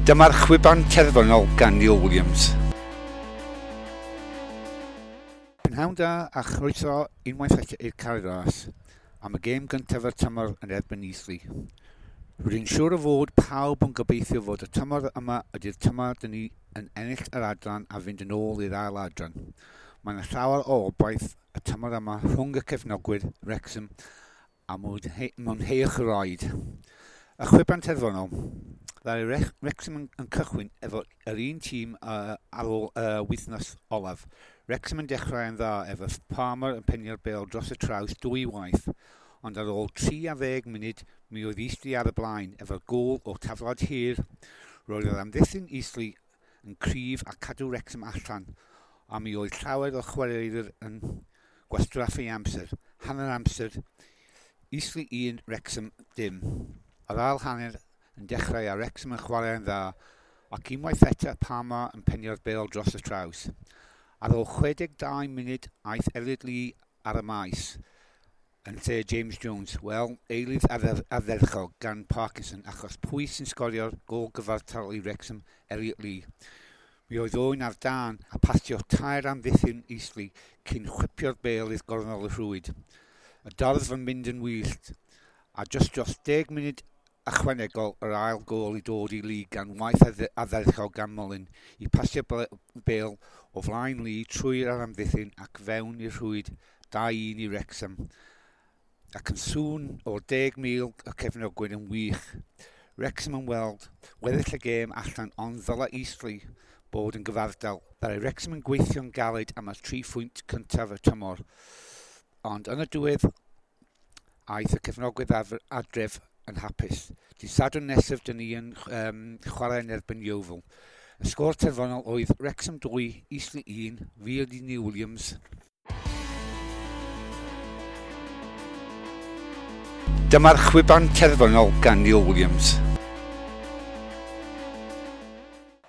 Dyma'r chwiban terfynol gan Neil Williams. Prynhawn da a chroeso unwaith eto i'r Cae Ras am y gêm gyntaf o'r tymor yn erbyn Eastleigh. Rwy'n siŵr o fod pawb yn gobeithio fod y tymor yma ydy'r tymor dyn ni yn ennill yr adran a fynd yn ôl i'r ail adran. Mae yna llawer o obaith y tymor yma rhwng y cefnogwyr Wrexham a mwynheuwch y ride. Y chwiban terfynol. Ddaru Wrexham yn cychwyn efo yr un tîm ar ôl y wythnos olaf. Wrexham yn dechrau yn dda efo Palmer yn penio'r bêl dros y traws dwy waith, ond ar ôl 30 munud mi oedd Eastleigh ar y blaen efo'r gôl o taflad hir. Roedd yr amddiffyn Eastleigh yn cryf a cadw Wrexham allan, a mi oedd llawer o chwaraewyr yn gwastraffu amser. Hanner amser, Eastleigh 1, Wrexham dim. Yr ail hanner yn dechrau a Wrexham yn chwarae'n dda, ac unwaith eto Palmer yn penio'r bêl dros y traws. Ar ôl 62 munud aeth Elliot Lee ar y maes yn lle James Jones. Wel, eilydd ardderchog gan Parkinson, achos pwy sy'n sgorio'r gôl gyfartal i Wrexham? Elliot Lee. Mi oedd Owen ar dân a pasio tair amddiffyn Eastleigh cyn chwipio'r bêl i'r gornel y rhwyd. Y dorf yn mynd yn wyllt, a jyst dros 10 munud ychwanegol yr ail gôl i dod i Lee gan waith ardderchog gan Mullin i pasio bêl o flaen Lee trwy'r amddiffyn ac fewn i'r rhwyd 2-1 i Wrexham. Ac yn sŵn o'r 10,000 y cefnogwyr yn wych. Wrexham yn weld weddill y gêm allan, ond ddylai Eastleigh bod yn gyfardal. Ddaru Wrexham yn gweithio'n galed am y 3 phwynt cyntaf y tymor. Ond yn y diwedd aeth y cefnogwyr adref yn hapus. Dydd Sadwrn nesaf dyn ni yn chwarae yn erbyn Yeovil. Y sgôr terfynol oedd Wrexham 2, Eastleigh 1, fi ydi Neil Williams. Dyma'r chwiban terfynol gan Neil Williams.